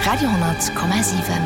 Radio,7.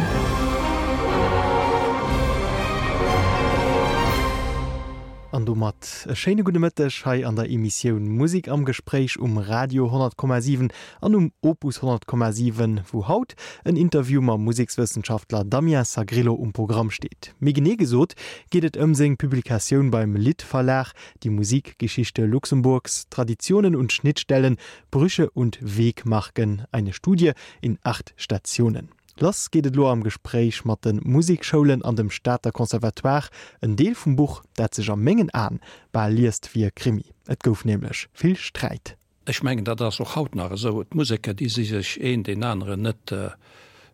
An domat e schéine gudde Mëtteg hei an der Emissioun Musik am Gespréich um Radio 100,7 an um Opus 100,7, wou haut en Interview mam Musekswëssenschaftler Damien Sagrillo um Programm steet. Méi genee gesot geet et ëm seng Publikatioun beim Lidd Verlag, Die Musikgeschichte Luxemburgs, Traditionen und Schnittstellen, Brüche und Wegmarken, eine Studie in acht Stationen. Lass geet et elo am Gespréich mat de Musekschoulen an dem Stater Conservatoire, en Deel vum Buch, dat sech a mengen Aen bal liest wéi e Krimi. Et gouf nämlech vill Sträit. Ech mengen, dat ass och haut nach esou. D'Museker, déi si sech een deen aneren net,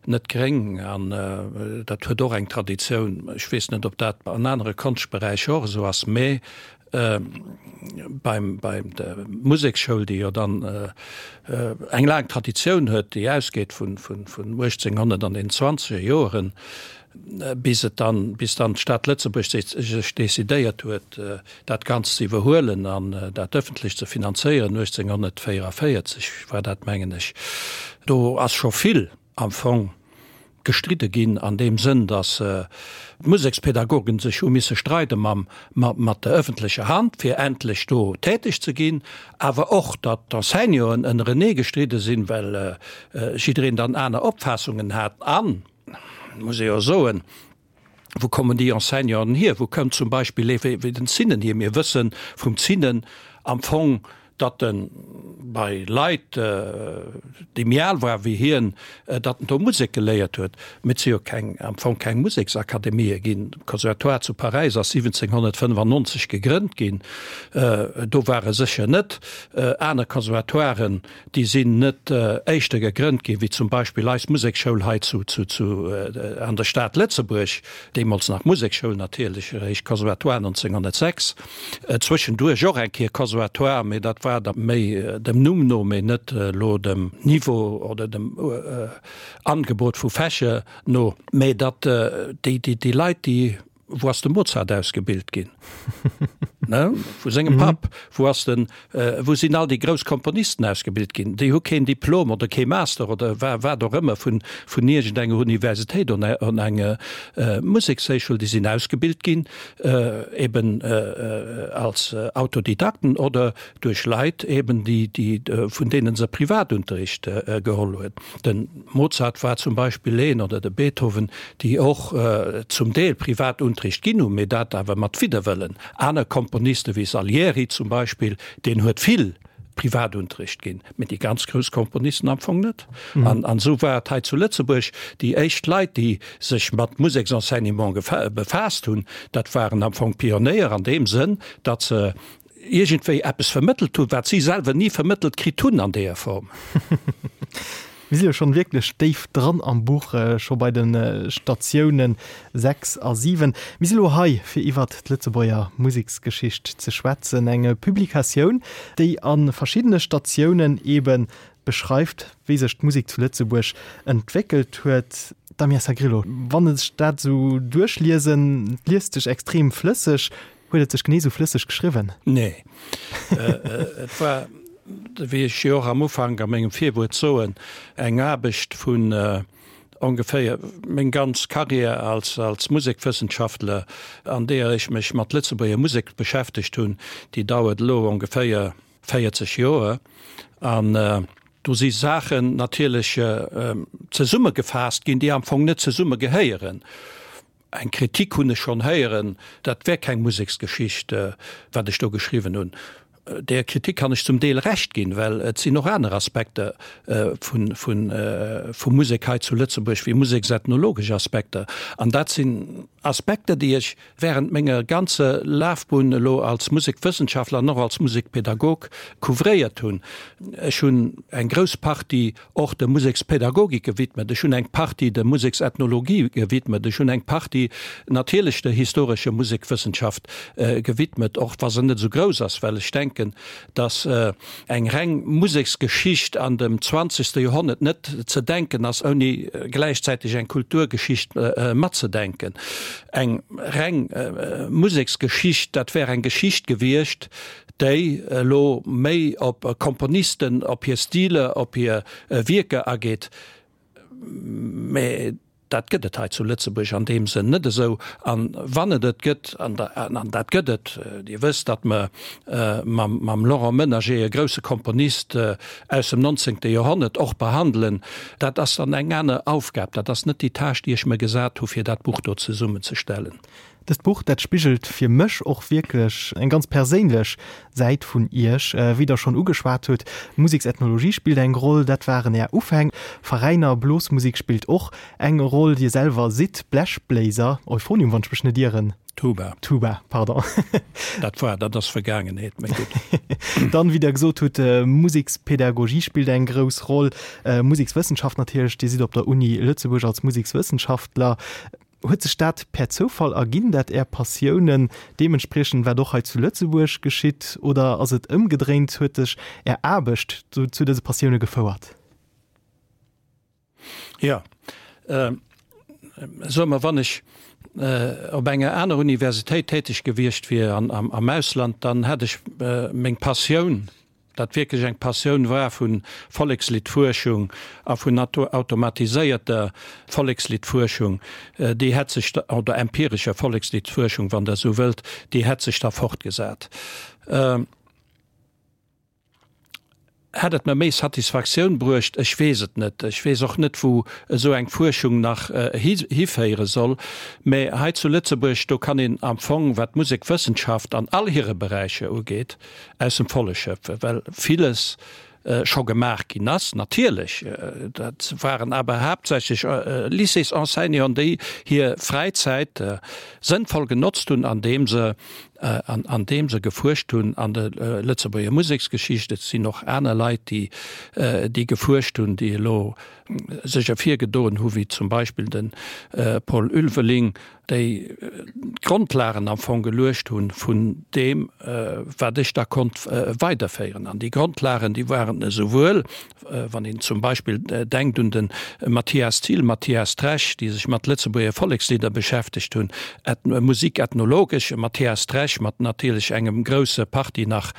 net gréng. An dat huet och eng Traditioun. Ech weess net, ob dat an anere Konschtberäicher och esou ass, mä beim, bei der Museksschoul, déi jo dann eng laang Traditioun huet, déi ausgeet vun, vun, vun 1800 an den zwanzeger Joeren, bis et dann, bis dann d'Stad Lëtzebuerg sech decidéiert huet, dat Ganzt ze iwwerhuelen an dat ëffentlech ze finanzéieren, 1844 war dat, mengen ech, do ass scho vill am Fong gestridde ginn an deem Sënn, datt d'Musekspädagogen sech hu misse streide mam, mat der ëffentlecher Hand, fir endlech do täteg ze ginn, awer och, datt d'Enseignanten ënnerenee gestridde sinn, well jiddereen dann aner Opfaassungen hat. An muss ee jo soen, wou kommen déi Enseignanten hier? Wou kënnt zum Beispill ee wéi den Zinnen hier? Mir wësse vum Zinnen am Fong, datt e bei Leit, déi méi al ware wéi hien, datt en do Musek geléiert huet. Mee et si jo keng, am Fong keng Museksakademië ginn. De Conservatoire zu Paräis ass 1795 gegrënnt ginn, do war e sécher net. Aner Conservatoiren Déi sinn net éischter gegrënnt ginn, wéi zum Beispill eis Museksschoul hei zu, zu, zu, an der Stad Lëtzebuerg, deemools nach Museksschoul natierlech, eréischt Conservatoire 1906, zwëschenduerch och eng Kéier Conservatoire, mee dat war da méi dem Numm no, mee net elo dem Niveau oder dem Angebot vu Fächer no. Mee datt déi, déi, déi Leit, déi Wou ass de Mozart ausgebilt ginn? Ne? Vu sengem Papp. Wou ass den, wou sinn all déi grouss Komponisten ausgebilt ginn? Déi hu keen Diplom oder kee Master oder wa wat och ëmmer vun, vun iergendenger Universitéit oder enger Musekshéichschul. Déi sinn ausgebilt ginn eben als Autodidakten oder duerch Leit eben, déi, déi, vun deene se Privatunterricht geholl huet. De Mozart war zum Beispill een, oder de Beethoven, déi och zum Deel Privatunterricht ginn hunn, mee dat awer mat Widderwëllen. Aner Komponiste wéi Salieri zum Beispill, deen huet vill Privatunterricht ginn, mee déi ganz grouss Komponisten am Fong net. An esou war et hei zu Lëtzebuerg, déi éischt Leit, déi sech mat Museksenseignement befaasst hunn, dat waren am Fong Pionéier an deem Sënn, datt se iergendwéi eppes vermëttelt hunn, wat si selwer ni vermëttelt kritt hunn an deeër Form. Mir si jo schonn wierklech déif dran am Buch, scho bei de Statiounen 6 a 7. Mir si lo hei, fir iwwert d'Lëtzebuerger Museksgeschicht ze schwätzen, eng Publikatioun, déi a verschiddene Statiounen eebe beschreift, wéi sech d'Musek zu Lëtzebuerg entwéckelt huet. Damien Sagrillo, wann ech dat esou duerchliesen, et liest sech extrem flësseg, Huet et sech genee sou flësseg geschriwwen? Nee. Et war, wéi ech jo och am Ufank a mengem Virwuert soen, eng Aarbecht vun ongeféier meng ganz Carrière als als Musekwëssenschaftler, an deeër ech mech mat Lëtzebuerger Musek beschäftegt hunn, déi dauert elo ongeféier 40 Joer. An do si Saachen natierlech zesummegefaasst ginn, déi am Fong net zesumme gehéieren. Eng Kritik hunn ech schonn héieren, dat wär keng Museksgeschicht, wat ech do geschriwwen hunn. Där Kritik kann ech zum Deel Recht ginn, well et sinn och aner Aspekter vu Musek hei zu Lëtzebuerg wéi museksethnologesch Aspekter. An dat sinn Aspekter, déi ech während menger ganzer Lafbunn elo als Musekwëssenschaftler an och als Musekpädagog couvréiert hunn. Ech hunn eng grouss Partie och der Musekspädagogik gewidmet, ech hunn eng Partie der Museksethnologie gewidmet, ech hunn eng Partie natierlech der historescher Musekwëssenschaft gewidmet, och wa se net esou grouss ass, well ech denken, datt eng reng Museksgeschicht an dem zwanzegste Joerhonnert net ze denken ass, ouni gläichzäiteg eng Kulturgeschicht matzedenken. Eng reng Museksgeschicht, dat wär eng Geschicht gewiescht, déi elo méi op Komponisten, op hir Stiler, op hir Wierker ageet. Mä dat gëtt et hei zu Lëtzebuerg an deem Sënn net esou. An wann et et gëtt, an dat gëtt et, Dir wësst, datt mer mam Laurent Menager e grousse Komponist aus dem nonzéngte Joerhonnert och behandelen, dat ass dann eng aner Aufgab. Dat ass net déi Tâche, déi ech mer gesat hu fir dat Buch do zesummenzestellen. Dëst Buch, dat spigelt fir mech och wierklech eng ganz perséinlech Säit vun Iech. Wéi Der schonn ugeschwat hutt, Museksethnologie spillt eng Roll, dat waren Är Ufäng. Veräiner, Blosmusek spillt och eng Roll. Dir selwer sidd Blechbléiser, Euphonium, wann ech mech net ieren. Tuba. Tuba, pardon. Dat war, dat ass Vergaangenheet, mä gutt. Dann, wéi Der gesot hutt, Musekspädagogie spillt eng grouss Roll, Musekswëssenschaft natierlech. Dir sidd op der Uni Lëtzebuerg als Musekswëssenschaftler. Huet sech dat per Zoufall erginn, dat Är Passiounen deementspriechen, wat och hei zu Lëtzebuerg geschitt, oder ass et ëmgedréint, huet sech Är Aarbecht zu dëse Passioune gefouert? Jo, soe mer, wann ech op enger aner Universitéit täteg gewiescht wier am Ausland, dann hätt ech meng Passioun, dat wierklech eng Passioun war vu Volleksliddfuerschung a vun automatiséierter Volleksliddfuerschung, déi hätt sech, oder empirescher Volleksliddfuerschung, wann Der esou wëllt, déi hätt sech da fortgesat. Hätt et mer méi Satisfaktioun bruecht? Ech weess et net. Ech weess och net, wou esou eng Fuerschung nach hiféiere soll. Mä hei zu Lëtzebuerg, do kann een am Fong, wat d'Musekwëssenschaft an all hire Beräicher ugeet, aus dem Volle schöpfen, well villes scho gemaach ginn ass. Natierlech, dat waren awer haaptsächlech Lycées-Enseignanten, déi hir Fräizäit sënnvoll genotzt hunn, andeem se, andeem se gefuerscht hunn an der Lëtzebuerger Museksgeschicht. Et sinn och aner Leit, déi, déi gefuerscht hunn, déi elo sech ervirgedoen hu wéi zum Beispill de Paul Ulveling, déi d'Grondlagen am Fong geluecht hu vun deem, wat ech da konnt weiderféieren. An déi Grondlagen, déi waren esouwuel, wann een zum Beispill denkt un de Mathias Thill, Mathias Tresch, déi sech mat Lëtzebuerger Vollekslidder beschäftegt hunn, musikethnologesch, Mathias Tresch mat natierlech engem grousse Partie nach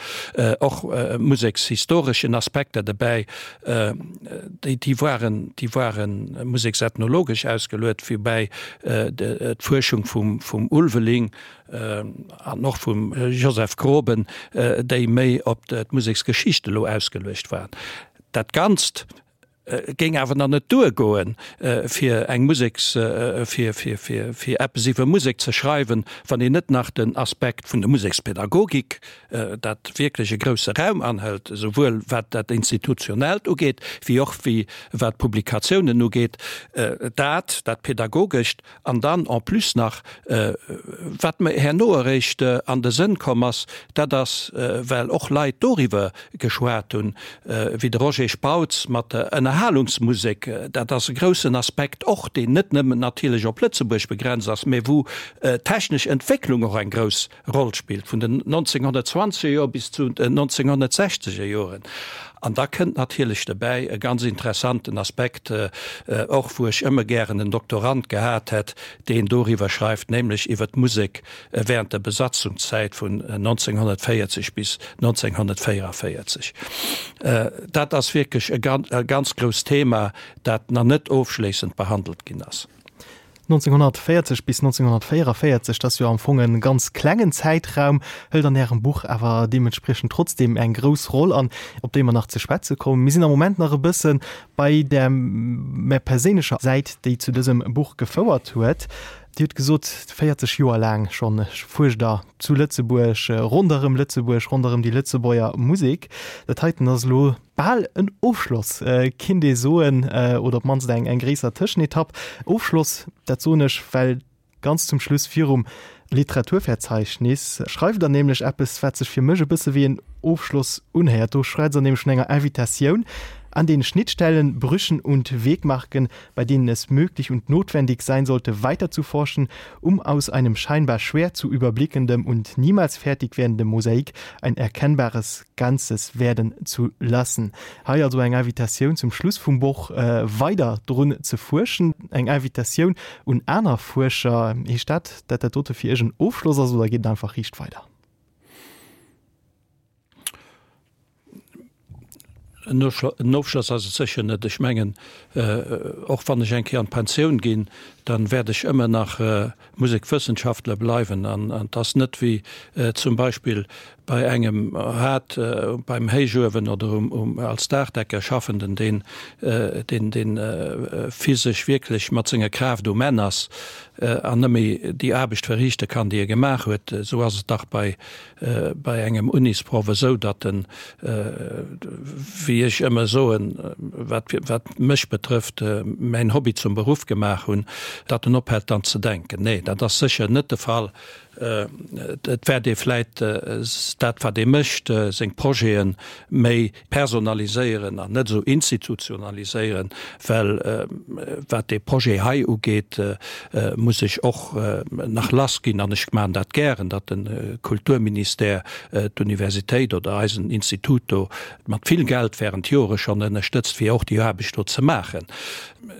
och musekshistoreschen Aspekter dobäi, Déi, déi waren, déi ware museksethnologesch ausgeluet, woubäi d'Fuerschung vum, vum Ulveling an och vum Joseph Groben, déi méi op d'Museksgeschicht elo ausgeluecht waren. Dat Ganzt géing awer nach net duergoen, fir eng Museks, fir, fir, fir, fir eppes iwwer Musek ze schreiwen, wann een net nach den Aspekt vun der Musekspädagogik dat wierklech e grousse Raum anhëlt, esouwuel wat dat Institutionellt ugeet, wéi och wéi wat d'Publikatiounen ugeet, dat, dat Pädagogescht an dann en plus nach, wat mer herno eréischt an de Sënn komm ass, dat ass, well och Leit doriwwer geschwat hunn, wéi de Roger Spautz mat der Ënnerhalungsmusek, dat ass e groussen Aspekt och, deen net nëmmen natierlech op Lëtzebuerg begrenzt ass, mä wou d'technesch Entwécklung och eng grouss Roll spillt, vun den 1920er Joer bis zu den 1960er Joren. An da kënnt natierlech dobäi e ganz interessanten Aspekt och, wou ech ëmmer gären en Doktorand gehat hätt, deen doriwwer schreift, nämlech iwwer d'Musek während der Besatzungszäit vun 1940 bis 1944. Dat ass wierklech e ganz grousst Thema, dat nach net ofschléissend behandelt ginn ass. 1940 bis 1944, dat ass jo am Fong e ganz klengen Zäitraum, hëlt an Ärem Buch awer deementspriechend trotzdeem eng grouss Roll an, op déi mer nach ze schwätze kommen. Mir sinn am Moment nach e bësse bei där méi perséinlecher Säit, déi zu dësem Buch gefouert huet. Dir hutt gesot, 40 Joer laang schonn fuerscht Der zu Lëtzebuerg, ronderëm Lëtzebuerg, ronderëm déi Lëtzebuerger Musek. Dat heiten ass elo Bal en Ofschloss, kinnt ee soen, oder op d'mannst eng eng gréisser Tëschenetapp. Ofschloss, dat soen ech, well ganz zum Schluss virum Literaturverzeichnis schreift Der nämlech eppes, wat sech fir mech e bësse wéi en Ofschloss unhéiert. Do schwätzt Der nämlech vun enger Invitatioun an den Schnittstellen, Brüchen und Wegmarken, bei denen es möglich und notwendig sein sollte, weiterzuforschen, um aus einem scheinbar schwer zu überblickendem und niemals fertig werdendem Mosaik ein erkennbares Ganzes werden zu lassen. Hei also eng Invitatioun zum Schluss vum Buch weider drun ze fuerschen, eng Invitatioun un aner Fuerscher. Heescht dat, dat dat dote fir Iech en Ofschloss ass oder geet et einfach riicht weider? En Ofschloss ass et sécher net. Ech mengen, och wann ech eng Kéier an d'Pensioun ginn, dann wäert ech ëmmer nach Musekwëssenschaftler bleiwen. An et ass net wéi zum Beispill bei engem hat beim Héichuewen oder um als Daachdecker Schaffenden, deen deen deen physesch wierklech mat senger Kraaft um Enn ass an net méi déi Aarbecht verriichte kann, déi e gemaach huet. Esou ass et dach bei bei engem Unisproff esou, datt en, wéi ech ëmmer soen, wat wat mech betrëfft, mäin Hobby zum Beruff gemaach hunn, datt en ophält dann ze denken. Nee, dat ass sécher net de Fall. Et wäert ee vläit dat wat ee mécht, seng Projete méi personaliséieren an net esou institutionaliséieren, well wat dee Projet hei ugeet, muss ech och nach lass ginn, an ech maachen dat gären, datt de Kulturministère d'Universitéit oder eisen Institut do mat vill Geld während Jore schonn ënnerstëtzt, fir och déi Aarbecht do ze maachen.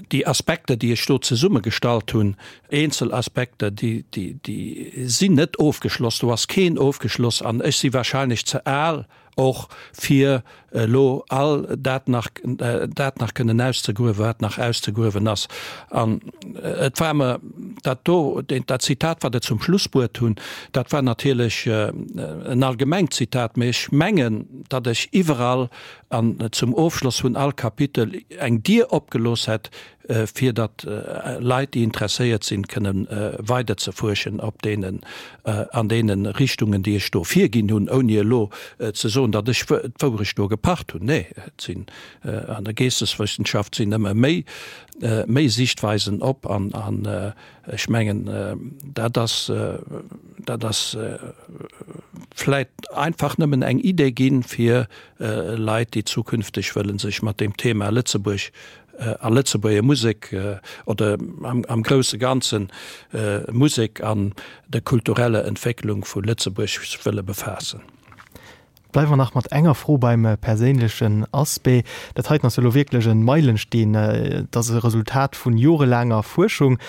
Déi Aspekter, déi ech do zesummegestallt hunn, eenzel Aspekter, déi, déi sinn net ofgeschloss, do ass keen ofgeschloss an ech si wahrscheinlech ze al, och fir elo all dat nach, dat nach kënnen auszegruewen, wat nach auszegruewen ass. An et war mer dat do, dat Zitat, wat Der zum Schluss bruet hunn, dat war natierlech en allgemengt Zitat, mä ech mengen, datt ech iwwerall an zum Ofschloss vun all Kapitel eng Dier opgelooss hätt, fir datt Leit, déi interesséiert sinn, kënne weider ze fuerschen op deenen, an deene Richtungen, déi ech do virginn hunn, ouni elo ze soen, datt ech d'Wourecht do gepacht hunn. Nee, et sinn an der Geesteswëssenschaft sinn ëmmer méi, méi Sichtweisen op an, an ech mengen, dat ass, dat ass vläit einfach nëmmen eng Idee ginn, fir Leit, déi zukünfteg wëlle sech mat deem Thema Lëtzebuerg a Lëtzebuerger Musek oder am grousse Ganzen Musek an der kultureller Entwécklung vu Lëtzebuerg wëlle befaassen. Bleiwe mer nach mat enger Fro beim perséinlechen Aspect. Dat heiten ass jo elo wierklech e Meilensteen. Et ass e Resultat vun jorelaanger Fuerschung.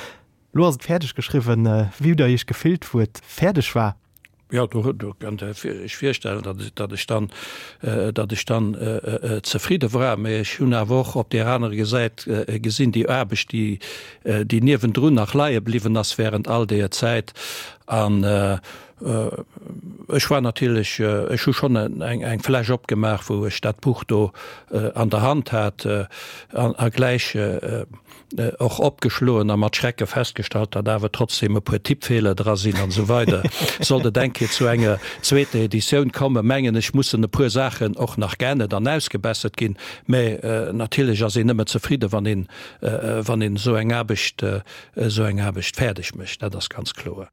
Lo ass et fäerdeg geschriwwen. Wéi hutt der Iech gefillt, wou et fäerdeg war? Jo, do do kënnt Der Iech virstellen, datt datt ech dann, datt ech dann zefridde war. Mä ech hunn awer och op där anerer Gesäit gesinn, déi Aarbecht, déi déi niewendrun nach leie bliwwen ass während all deeër Zäit. An ech war natierlech, ech hu schonn eng eng Fläsch opgemaach, wou ech dat Buch do an der Hand hat an a gläich och opgeschloen a mat Schrecke festgestallt, datt awer trotzdem e puer Tippfeeler dra sinn an esou weider. Sollt et eng Kéier zu enger zweeter Editioun kommen, mengen ech, mussen e puer Saachen och nach geännert an ausgebessert ginn. Mä natierlech ass een nëmme zefridde wann een, wann een esou eng Aarbecht, esou eng Aarbecht fäerdeg mécht, dat ass ganz kloer.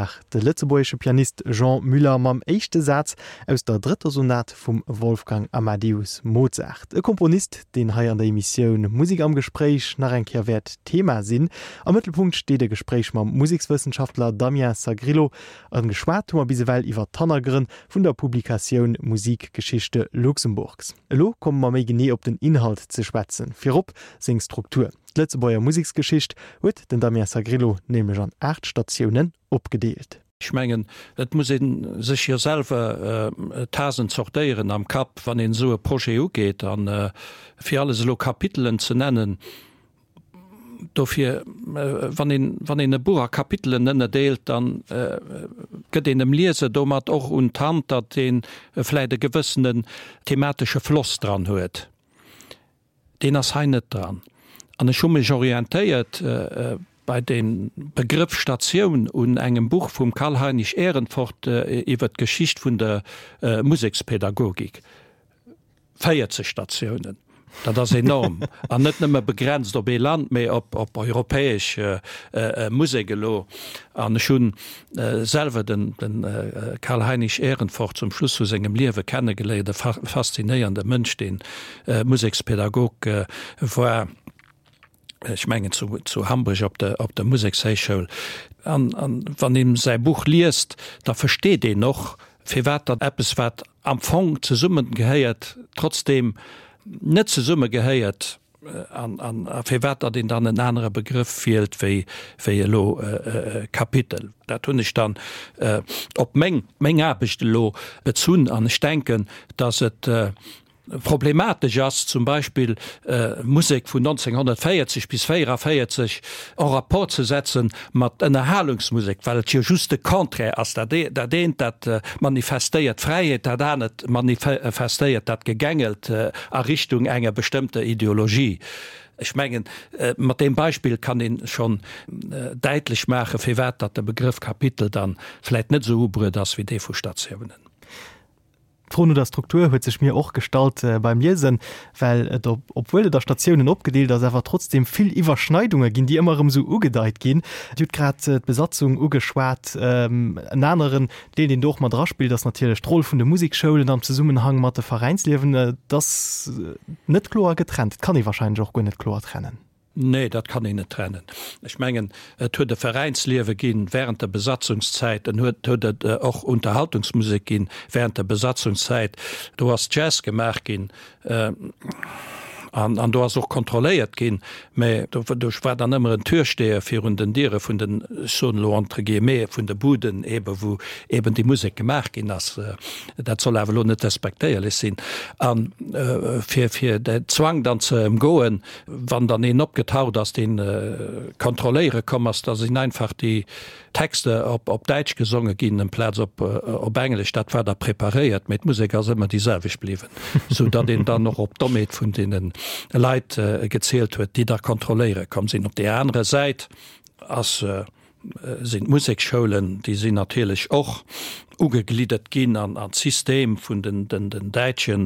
war de lëtzebuergesche Pianist Jean Muller mam éischte Saz aus der drëtter Sonat vum Wolfgang Amadeus Mozart. E Komponist, deen hei an der Emissioun Musek am Gespréich nach eng Kéier wäert Thema sinn. Am Mëttelpunkt steet e Gespréich mam Musekswëssenschaftler Damien Sagrillo. A geschwat hu mer bis ewell iwwer d'Hannergrënn vun der Publikatioun Musikgeschichte Luxemburgs. Elo komme mer méi genee op den Inhalt ze schwätzen, virop seng Struktur. D'Lëtzebuerger Museksgeschicht huet den Damien Sagrillo nämlech an 8 Statiounen opgedeelt. Ech mengen, et muss ee sech jo selwer d'Hasen zortéieren am Kapp, wann een esou e Projet ugeet. A fir alles elo Kapitelen ze nennen, dofir, wann een, wann een e Buch a Kapitelen ënnerdeelt, da gëtt een dem Lieser domat och un d'Hand, datt ee vläicht e gewëssenen thematesche Floss dran huet. Deen ass hei net dran. An ech hu mech orientéiert bei dem Begrëff Statioun un engem Buch vum Karl-Heinrich Ehrenfort iwwer d'Geschicht vun der Musekspädagogik. 40 Statiounen, dat ass enorm. An net nëmme begrenzt op ee Land, mee op europäesch Musek elo. An ech hunn selwer den Karl-Heinrich Ehrenfort zum Schluss vu sengem Liewe kennegeléiert, e faszinéierende Mënsch, deen Musekspedagog war, ech mengen zu Hamburg op der op der Musekshéichschoul. An wann een säi Buch liest, da versteet een och, firwat datt eppes, wat am Fong zesummegehéiert, trotzdeem net zesummegehéiert. An firwat datt een dann en anere Begrëff wielt wéi wéi elo Kapitel. Dat hunn ech dann op meng meng Aarbecht elo bezunn an ech denken, datt et problematesch ass, zum Beispill Musek vun 1940 bis 44 en rapport ze setze mat Ënnerhalungsmusek, well et jo just de Contraire ass. Dat dat eent dat manifestéiert d'Fräiheet, dat anert manifestéiert dat Gegängelt a Richtung enger bestëmmter Ideologie. Ech mengen, mat deem Beispill kann ee schonn däitlech maachen, firwat datt de Begrëff Kapitel dann vläit net esou ubruet ass wéi dee vu Statiounen. D'Fro no der Struktur huet sech mir och gestallt beim Liesen, well et, obwuel et a Statiounen opgedeelt ass, awer trotzdem vill Iwwerschneidunge ginn, déi ëmmer erëm esou ugedeit ginn. Dir hutt grad d'Besatzung ugeschwat. En aneren Deel, deen do och mat eraspillt, ass natierlech d'Roll vun de Musekschoulen am Zesummenhang mat de Veräinsliewen. Et ass net kloer getrennt. Et kann ee warscheinlech och guer net kloer trennen. Nee, dat kann een net trennen. Ech mengen, et huet e Veräinsliewe ginn während der Besatzungszäit, en huet huet et och Unterhaltungsmusek ginn während der Besatzungszäit. Do ass Jazz gemaach ginn an an do ass och kontrolléiert ginn, mä do do war dann ëmmer en Türsteher virun den Diere vun den, ech soen elo entre guillemets, vun de Buden eebe wou eeben déi Musek gemaach ginn ass. Dat soll awer elo net despektéierlech sinn. A fir fir den Zwang dann ze ëmgoen, Wann dann een opgetaucht ass, deen kontrolléiere komm ass, da sinn einfach déi Texter op Däitsch gesonge ginn amplaz op Englesch. Dat war da preparéiert, mee d'Musek ass ëmmer déi selwecht bliwwen, sou datt een dann och op d'Dommheet vun deene Leit gezielt huet, déi da kontrolléiere komm sinn. Op där anerer Säit ass sinn d'Museksschoulen, déi sinn natierlech och ugegliddert ginn an d'System vun den däitsche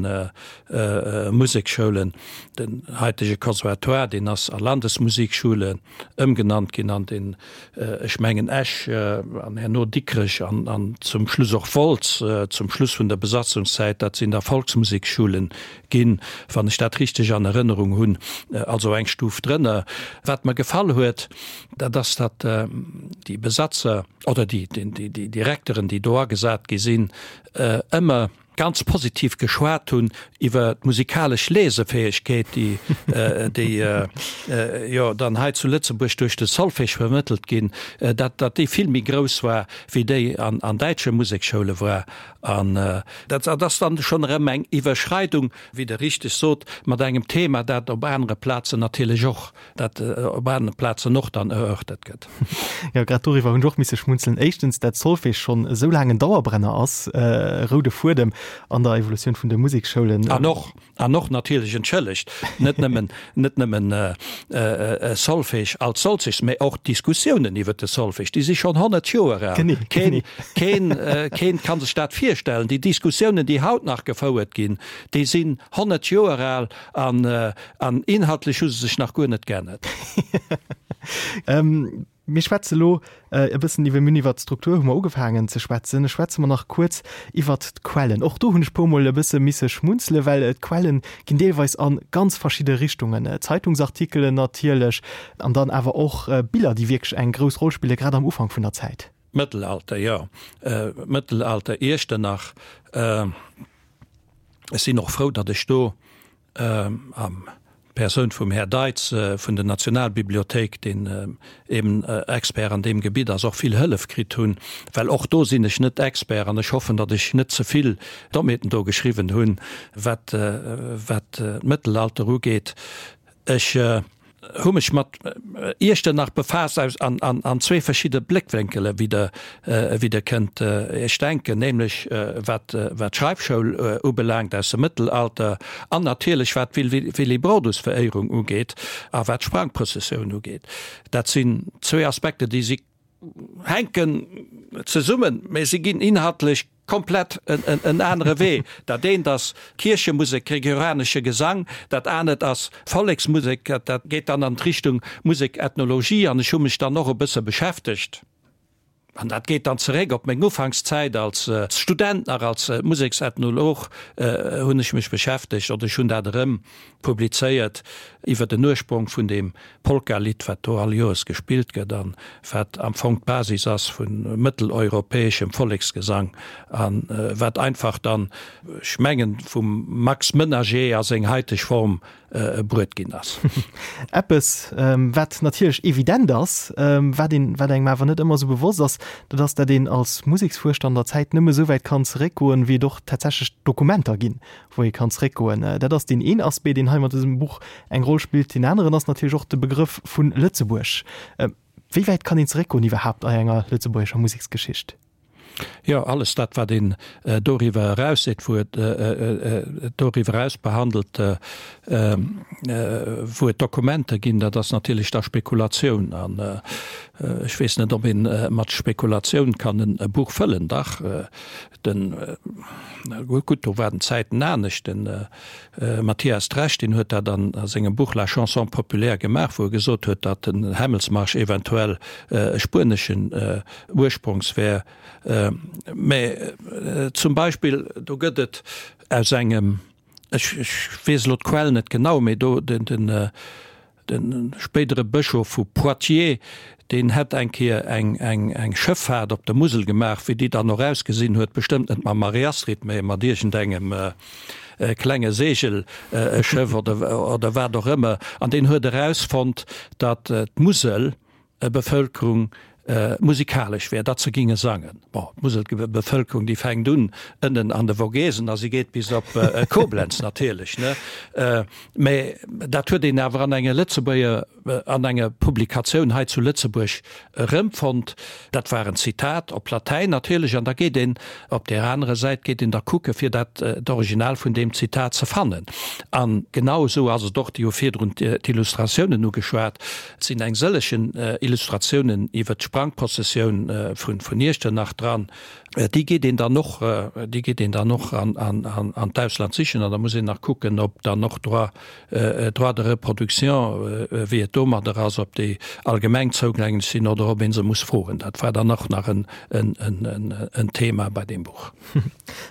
Museksschoulen. Den haitege Conservatoire, deen ass a Landesmusikschule ëmgenannt ginn an den, ech mengen Esch an herno Dikrech an zum Schluss och Wolz, zum Schluss vun der Besatzungszäit, dat sinn da Volksmusikschulen ginn, wann ech dat richteg an Erënnerung hunn, also eng Stuf drënner. Wat mer gefall huet, Dat ass, datt déi Besatzer oder déi Direkteren, déi do agesat gi sinn, ëmmer ganz positiv geschwat hunn iwwer d'musikalesch Lesefäegkeet, déi déi jo dann hei zu Lëtzebuerg duerch de Solfège vermëttelt ginn, datt datt déi vill méi grouss war wéi déi an an däitsche Musekschoule war. An dat ass dann schonn erëm eng Iwwerschreidung, wéi Der richteg sot, mat engem Thema, dat op anere Plazen natierlech och dat op anere Plazen och dann erörtert gëtt. Jo, grad doriwwer hunn ech och misse schmunzelen. Éischtens, dat Solfège schonn esou laang en Dauerbrenner ass, e roude Fuedem an der Evolutioun vun de Museksschoulen. An och, an och natierlech, entschëllegt, net nëmmen, net nëmmen Solfège als solches, mä och d'Diskussiounen iwwer de Solfège, déi si schonn 100 Joer al. Genee, genee. Keen, keen, keen ka sech dat virstellen. Déi Diskussiounen, déi haut nach gefouert ginn, déi sinn 100 Joer al an, An inhaltlech hu se sech nach guer net geännert. Mir schwätze lo e bëssen iwwer, mir hunn iwwert d'Struktur hu mer ugefaangen ze schwätzen. Schwätze mer nach kuerz iwwert d'Quellen. Och do hunn ech puermol e bësse misse schmunzele well d'Quellen ginn deelweis a ganz verschidde Richtungen. Zeitungsartikelen natierlech an dann awer och Biller, déi wierklech eng grouss Roll spille grad am Ufank vun der Zäit. Mëttelalter, jo, Mëttelalter Iechternach. Ech sinn och frou, datt ech do Am Persoun vum Här Deitz vun der Nationalbibliothéik, deen eben Expert an deem Gebitt ass, och vill Hëllef kritt hunn, well och do sinn ech net Expert an ech hoffen, datt ech net ze vill Dommheeten do geschriwwen hunn, wat wat d'Mëttelalter ugeet. Ech hu mech mat Iechternach befaasst aus an an an zwee verschidde Bléckwénkele wéi der wéi der kënnt Iech denken, nämlech wat wat d'Schreifschoul ubelaangt aus dem Mëttelalter an natierlech wat d'Willibrordusveréierung ugeet a wat d'Sprangprëssessioun ugeet. Dat sinn zwee Aspekte déi si hänken zesummen, mä si ginn inhaltlech komplett en anere Wee. Dat eent ass Kierchemusek, gregorianesche Gesang, dat anert ass Volleksmusek, dat geet dann an d'Richtung Musekethnologie. An ech hu mech dann och e bësse beschäftegt, an dat geet dann zeréck op meng Ufankszäit als Student nach, als Museksethnolog hunn ech mech beschäftegt, oder ech hunn dat erëm publizéiert, iwwer den Ursprong vun deem Polka-Lidd, wat do all Joers gespillt gëtt an wat am Fong d'Basis ass vu mëtteleuropäeschem Volleksgesang a wat einfach dann, ech mengen, vum Max Menager a seng haiteg Form bruet ginn ass. Eppes, wat natierlech evident ass, wat een, wat engem awer net ëmmer esou bewosst ass, dat ass, dat een als Museksfuerschter an der Zäit nëmme esou wäit kann zeréckgoen, wéi et och tatsächlech Dokumenter ginn, wou ee kann zréckgoen. Dat ass deen een Aspect, deen hei mat dësem Buch eng Roll spillt. Deen aneren ass natierlech och de Begrëff vu Lëtzebuerg. Wéi wäit kann een zeréckgoen iwwerhaapt a enger lëtzebuergescher Museksgeschicht? Jo, alles dat, wat een doriwwer eraus seet, wou et doriwwer eraus behandelt, wou et Dokumenter ginn, dat ass natierlech da Spekulatioun. An ech weess net, ob ee mat Spekulatioun kann e Buch fëllen. Dach, Den, gutt, do waren d'Zäiten anescht, den Mathias Dresch, deen huet dat an a sengem Buch La chanson populaire gemaach, wou e gesot huet, datt den Hämmelsmarsch eventuell e spueneschen Ursprongs wär. Mä zum Beispill, do gëtt et aus engem, ech weess elo d'Quell net genau, mä do den, den, De spéidere Bëschof vu Poitiers, deen hätt eng Kéier eng Schëffaart op der Musel gemaach, wéi déi dann och ausgesinn huet, bestëmmt net mam Marie-Astrid, mä mat iergendengem klenge Seegelschëff oder wat och ëmmer, an deen huet erausfonnt, datt d'Musel Bevëlkerung musikalesch wär, datt se ginge sangen. Bon, d'Muselbevëlkerung, déi fänkt un ënnen an de Vogesen a si geet bis op Koblenz natierlech, ne? Mä dat huet een awer an enger Lëtzebuerger, an enger Publikatioun hei zu Lëtzebuerg erëmfonnt. Dat war en Zitat op Latäin natierlech an da geet een op där anerer Säit geet een da kucke fir dat d'Original vun deem Zitat ze fannen. An genau esou ass et och, Dir hu virdrun d'Illustratiounen ugeschwat, Et sinn eng sëllegen Illustratiounen iwwer d'Sprangprozessioun vun Iechternach dran. Déi geet een dann och, déi geet een dann och an d'Ausland sichen an da muss een nach kucken, ob dann och Droit, Droits de reproduction, wéi et domadder ass, ob déi allgemeng zougänglech sinn oder ob ee se muss froen. Dat war dann och nach en Thema bei deem Buch.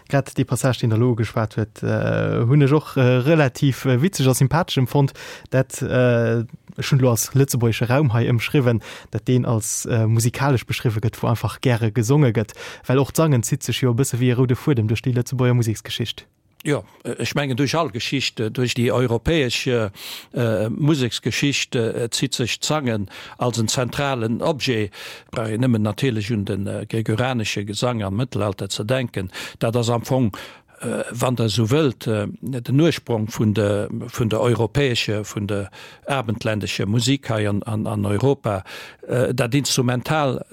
Grad dee Passage, deen Der elo ugeschwat huet, hunn ech och relativ witzeg a sympathesch empfonnt. Dat, ech hunn elo als lëtzebuergesche Raum hei ëmschriwwen, dat deen als musikalesch beschriwwe gëtt, wou einfach gäre gesonge gëtt. Well och d'Sangen zitt sech jo e bësse wéi e roude Fuedem duerch déi Lëtzebuerger Museksgeschicht. Jo, ech mengen duerch all Geschicht, duerch déi europäesch Museksgeschicht zitt sech d'Sangen als en zentralen Objet. Brauch een nëmmen natierlech un de gregorianesche Gesang am Mëttelalter ze denken. Dat ass am Fong, wann Der esou wëllt, den Ursprong vun de vun der europäesche, vun der abendländescher Musik hei an Europa. Dat Instrumental,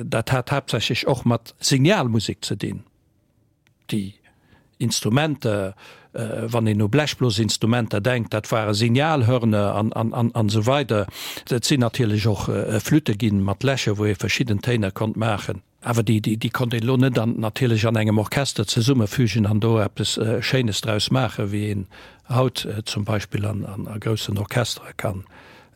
dat hat haaptsächlech och mat Signalmusek ze dinn. Déi Instrumenter, wann een u Blechblosinstrumenter denkt, dat ware Signalhörner an esou weider. Et sinn natierlech och Flütte ginn mat Lächer, wou ee verschidden Téiner konnt maachen. Awer déi konnt een elo net an natierlech an engem Orchester zesummefügen an do eppes Schéines draus maachen, wéi een haut zum Beispill an groussen Orchestere kann.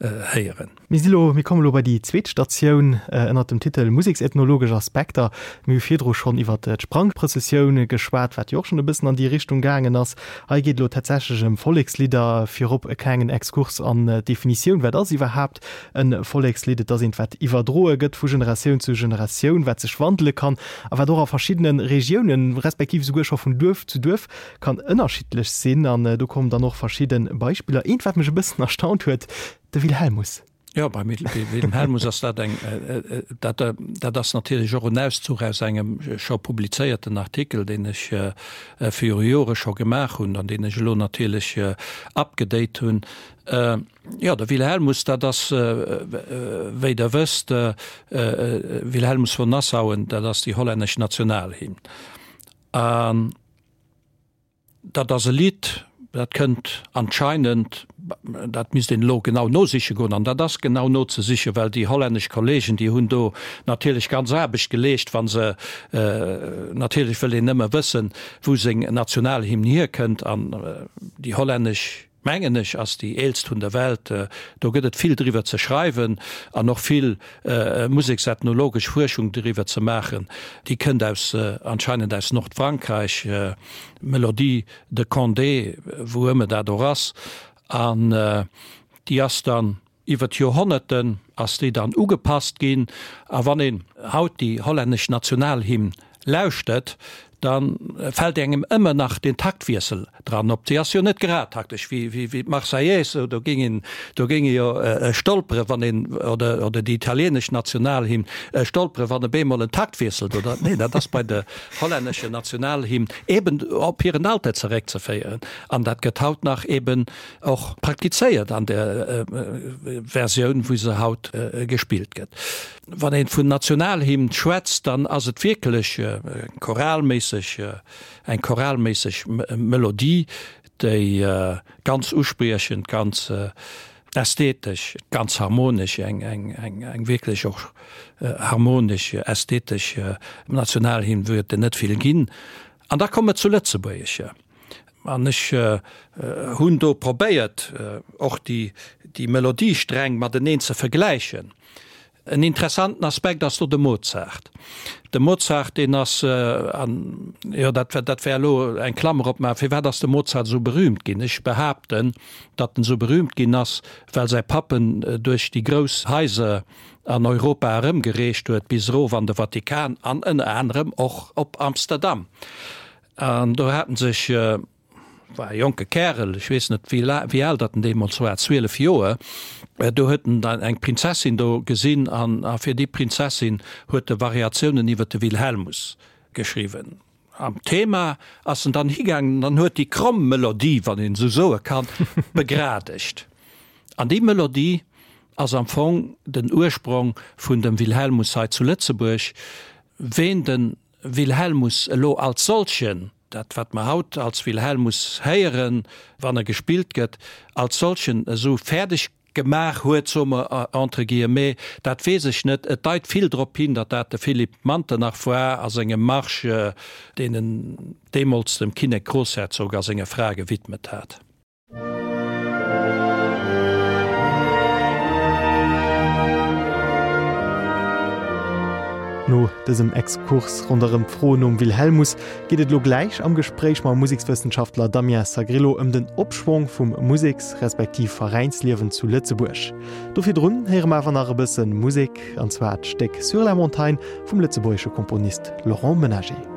héieren. Mir si lo, mir kommen elo bei déi zweet Statioun ënnert dem Titel Museksethnologesch Aspekter. Mir hu virdru schonn iwwert d'Sprangprëssessioun geschwat, wat jo och schonn e bëssen an déi Richtung gaangen ass. Hei geet elo tatsächlech ëm Vollekslidder. Virop e klengen Exkurs an d'Definitioun, Wat ass iwwerhaapt e Vollekslidd? Et ass eent, wat iwwerdroe gëtt vu Generatioun zu Generatioun, wat sech wandele kann a wat och a verschiddene Regiounen, respektiv esouguer scho vun Duerf zu Duerf kann ënnerschiddlech sinn. An do kommen dann och verschidde Beispiller. Eent, wat mech e bëssen erstaunt huet, De Wilhelmus. Jo, beim Wilhelmus ass dat eng, dat, dat ass natierlech och en Auszuch aus engem scho publizéierten Artikel, deen ech viru Jore scho gemaach hunn an deen ech elo natierlech upgedate hunn. Jo, de Wilhelmus, dat ass, wéi Der wësst, Wilhelmus von Nassauen, dat ass déi hollännesch Nationalhymn. An Dat ass e Lidd, dat kënnt anscheinend, dat misst een elo genau nosiche goen, an dat ass genau nozesichen, well déi hollännesch Kollegen, déi hunn do natierlech ganz Aarbecht geleescht, wa se, natierlech wëll een nëmme wëssen, wou seng Nationalhymn hierkënnt, an déi hollännesch, mengen ech, ass déi eelst vun der Welt. Do gëtt et vill driwwer ze schreiwen an och vill museksethnologesch Fuerschung driwwer ze maachen. Déi kënnt aus, anscheinend aus Nordfrankräich, Melodie de Condé, wou ëmmer dat och ass. An déi ass dann Iwwer d'Joerhonnerten ass déi dann ugepasst ginn, a wann een haut déi hollännesch Nationalhymn lauschtert, da fält engem ëmmer nach den Taktwiessel dran op. Déi ass jo net grad taktesch wéi d'Marseillaise, do géing een, do géing ee jo stolpere wann een, oder, oder déi italienesch Nationalhymn, stolpere wann op eemol en Taktwiessel do, nee, dat ass bei der hollännescher Nationalhymn eben op hiren Alter zeréckzeféieren an dat gëtt haut nach eben Och praktizéiert an der Versioun, wou se haut gespillt gëtt. Wann een vun Nationalhymn schwätzt, dann ass et wierklech choralméisseg, eng choralméisseg Melodie, déi ganz uspriechend, ganz ästhetesch, ganz harmonesch, eng wierklech och harmonesch, ästhetesch Nationalhymn, wou et der net vill ginn. An da komme mer zu Lëtzebuergescher. An ech hunn do probéiert, och déi Melodiesträng mateneen ze vergläichen. En interessanten Aspekt ass do de Mozart. De Mozart, deen ass, an jo, dat, dat wär elo eng Klammer opmaachen, firwat ass de Mozart esou berühmt ginn? Ech behaapten, datt en esou berühmt ginn ass, well säi Papp en duerch déi grouss Haiser an Europa erëmgereecht huet, bis erof an de Vatikan an ënner anerem och op Amsterdam. An do hat en sech, war e jonke Kärel, ech weess net wéi wéi al datt en deemools war, 12 Joer, do huet en dann eng Prinzessin do gesinn an a fir déi Prinzessin huet e Variatiounen iwwer de Wilhelmus geschriwwen. Am Thema ass en dann higaangen an huet déi kromm Melodie, wann een esou soe kann, begradegt. An déi Melodie ass am Fong den Ursprong vun dem Wilhelmus hei zu Lëtzebuerg. Ween de Wilhelmus elo als solchen, dat wat mer haut als Wilhelmus héieren, wann e gespillt gëtt, als solchen esou fäerdeg gemaach huet, soe mer entre guillemets, dat weess ech net. Et deit vill drop hin, datt dat de Philippe Manternach war a sengem Marsch, deen en deemools dem Kinnek-Groussherzog a senger Fra gewidmet hat. No dësem Exkurs ronderëm d'Fro nom Wilhelmus geet et elo gläich am Gespréich mam Musekswëssenschaftler Damien Sagrillo ëm den Opschwong vum Museks respektiv Veräinsliewen zu Lëtzebuerg. Do virdrun héiere mer awer nach e bësse Musek, an zwar d'Stéck Sur la montagne vum lëtzebuergesche Komponist Laurent Menager.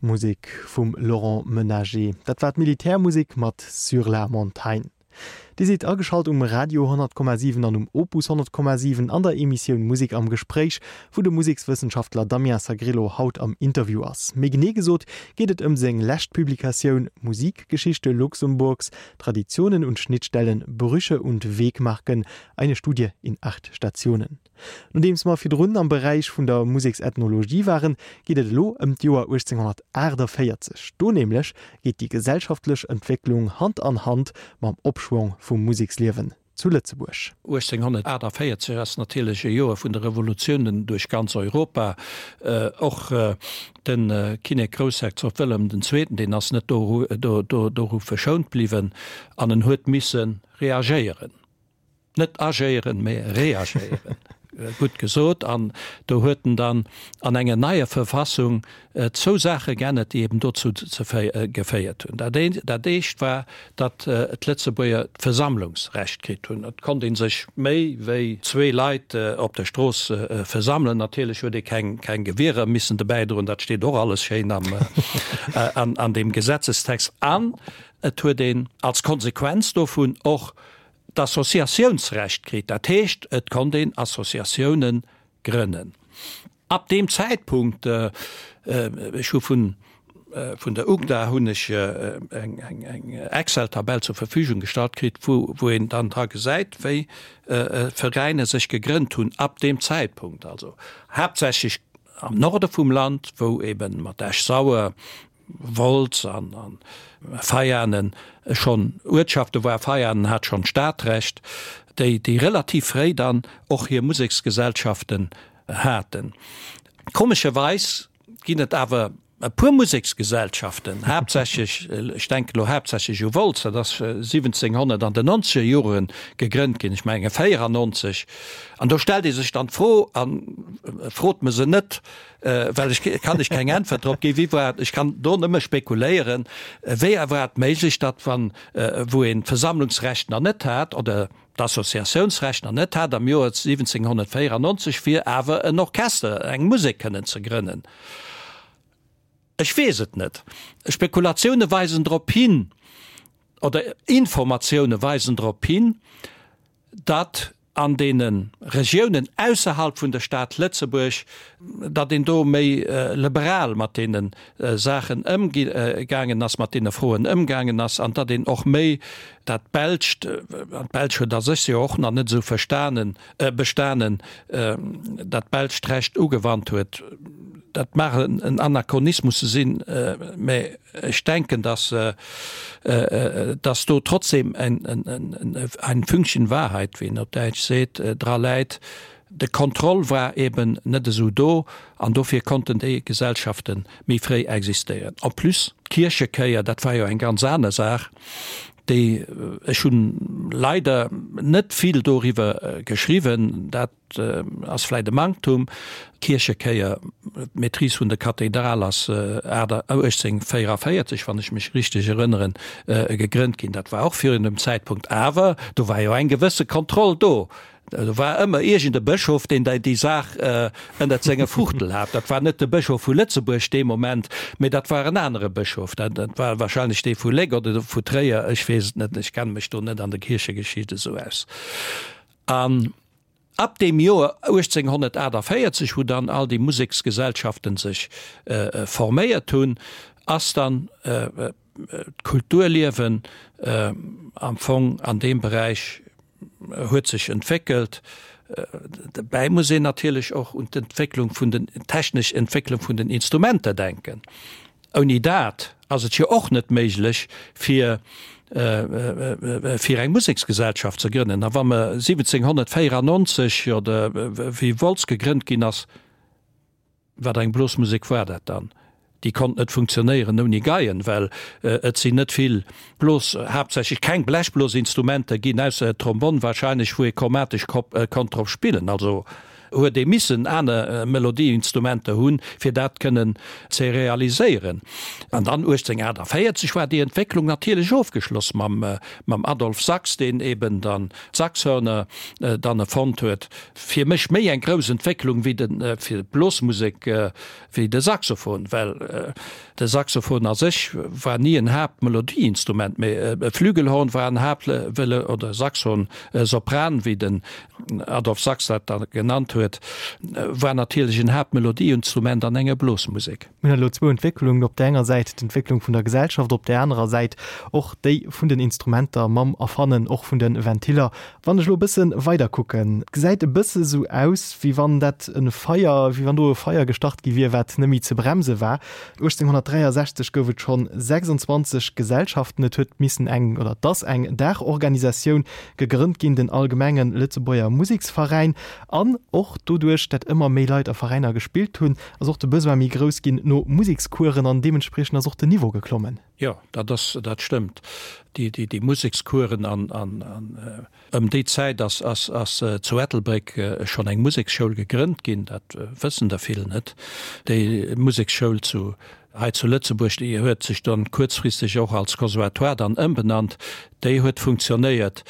Musek vum Laurent Menager. Dat war d'Militärmusek mat Sur la montagne. Dir sidd ageschalt um Radio 100,7 an um Opus 100,7 an der Emissioun Musek am Gespréich, wou de Musekswëssenschaftler Damien Sagrillo haut am Interview ass. Méi genee gesot geet et ëm seng lescht Publikatioun Musikgeschichte Luxemburgs, Traditionen und Schnittstellen, Brüche und Wegmarken, eine Studie in acht Stationen. Nodeems mer virdrun am Beräich vun der Museksethnologie waren, geet et elo ëm d'Joer 1848. Do nämlech geet déi gesellschaftlech Entwécklung Hand an Hand mam Opschwong vum Museksliewen zu Lëtzebuerg. 1848 ass natierlech e Joer vun de Revolutiounen duerch ganz Europa. Och de Kinnek Groussherzog Wëllem den Zweeten, deen ass net doru verschount bliwwen an en huet misse reagéieren. Net agéieren, mä reagéieren. Gutt gesot. An do huet en dann an enger neier Verfassung zwou Saache geännert, déi eben dozou geféiert hunn. Dat eent, dat éischt war, datt d'Lëtzebuerger d'Versammlungsrecht kritt hunn. Et konnt ee sech méi wéi zwee Leit op der Strooss versammelen. Natierlech huet ee keng, keng Gewierer missen dobäi droen. Dat steet och alles schéin am, an deem Gesetzestext. An et huet een als Konsequenz dovun och d'Associatiounsrecht kritt, dat heescht et konnt een Associatioune grënnen. Ab deem Zäitpunkt, ech hu vun vun der UGDA hunn ech eng eng Excel-Tabell zur Verfügung gestallt kritt, wou wou een dann dra gesäit, wéi Veräiner sech gegrënnt hunn ab deem Zäitpunkt, also haaptsächlech am Norde vum Land, wou eben mat Esch-Sauer, Wolz an Veianen schonn Uertschafte war. Veianen hat schonn Stadrecht, déi déi relativ fréi dann och hir Museksgesellschaften haten. Komescherweis ginn et awer e puer Museksgesellschaften, haaptsächlech, ech denken elo haaptsächlech u Wolz, dat ass 1700 an den nonzeger Jore gegrënnt ginn, ech menge 94. An do stellt ee sech dann d'Fro, a frot mer se net, Well ech kann ech keng Äntwert drop ginn. Wéi war et, ech kann do nëmme spekuléieren, wéi war et méiglech, datt wann, wou een d'Versammlungsrecht nach net hat oder d'Associatiounsrecht nach net hat am Joer 1794, fir awer en Orchester, eng Musek kënnen ze grënnen? Ech weess et net. Spekulatioune weisen drop hin, oder Informatioune weisen drop hin, datt. an deene Regiounen ausserhalb vun der Stad Lëtzebuerg, datt een do méi liberal mat deene Saachen ëmgaangen ass, mat deene Froen ëmgaangen ass, an datt een och méi dat Belscht, an d'Belsch huet a sech jo och nach net esou verstanen, bestanen, dat belscht Recht ugewannt huet. Dat mag en Anachronismus sinn, mä ech denken, datt, datt do trotzdem ein Fünkchen Wahrheit, wéi een op Däitsch seet, dra läit. De Contrôle war eben net esou do an dofir konnten déi Gesellschafte méi fréi existéieren. En plus, d'Kierchekéier, dat war jo eng ganz aner Saach, déi, ech hunn leider net vill doriwwer geschriwwen, dat ass vläicht e Manktum, d'Kierchekéier, d'Maîtrise vun der Kathedral ass 1844, wann ech mech richteg erënneren, gegrënnt ginn. Dat war och virun dem Zäitpunkt, awer do war jo eng gewësse Kontroll do. Do war ëmmer iergend e Bëschof, deen déi Saach ënnert senger Fuchtel hat. Dat war net de Bëschof vu Lëtzebuerg dee Moment, mee dat war en anere Bëschof. Dat war wahrscheinlech dee vu Léck oder vu Tréier, ech weess et net, ech kenne mech do net an der Kierchegeschicht esou aus. An ab deem Joer 1848, wou dann all déi Museksgesellschaften sech forméiert hunn, ass dann d'Kulturliewen am Fong an deem Beräich huet sech entwéckelt. Dobäi muss een natierlech och un d'Entwécklung vun den, technesch Entwécklung vun den Instrumenter denken. Ouni dat ass et jo och net méiglech, fir, fir eng Museksgesellschaft ze grënnen. A wa mer 1794 oder wéi Wolz gegrënnt ginn ass, Wat eng Blosmusek war dat dann? Déi konnt net funktionéieren ouni Geien, well et sinn net vill Blos, haaptsächlech keng Blechblosinstrumenter ginn, ausser Trombonn wahrscheinlech, wou ee chromatesch konnt drop spillen. Also huet ee missen aner Melodieinstrumenter hunn, fir dat kënnen ze realiséieren. An dann 1848 war déi Entwécklung natierlech ofgeschloss mam Adolphe Sax, deen eben dann d'Saxhörner dann erfonnt huet. Fir mech méi eng grouss Entwécklung wéi de fir d'Blosmusek wéi de Saxophon, well de Saxophon a sech war ni en Haaptmelodieinstrument, mee e Flügelhorn war en Haapt oder Saxhorn Sopran, wéi den Adolphe Sax dat da genannt huet, war natierlech en Haaptmelodieinstrument an enger Blosmusek. Mir hunn elo zwou Entwécklungen, op där enger Säit d'Entwécklung vun der Gesellschaft, op där anerer Säit och déi vun den Instrumenter mam Erfannen och vun de Ventiller. Wann ech elo e bësse weider kucken, et gesäit e bësse sou aus, wéi wann dat e Feier, wéi wann do e Feier gestart gi wier, wat net méi ze bremse war. 1863 gouf et schonn 26 Gesellschaften. Et huet missen eng, oder et ass eng Daachorganisatioun gegrënnt ginn, den Allgemenge Lëtzebuerger Museksveräin. An och doduerch, dat ëmmer méi Leit a Veräiner gespillt hunn, ass och de Besoin méi grouss ginn no Musekscoursen an deementspriechend ass och den Niveau geklommen. Jo, dat ass, dat stëmmt. Déi, déi, déi Musekscoursen an, an, an ëm déi Zäit ass, ass, ass zu Ettelbréck schonn eng Museksschoul gegrënnt ginn, dat wëssen der vill net. Déi Museksschoul zu, hei zu Lëtzebuerg, déi huet sech dann kuerzfristeg och als Conservatoire dann ëmbenannt, déi huet funktionéiert.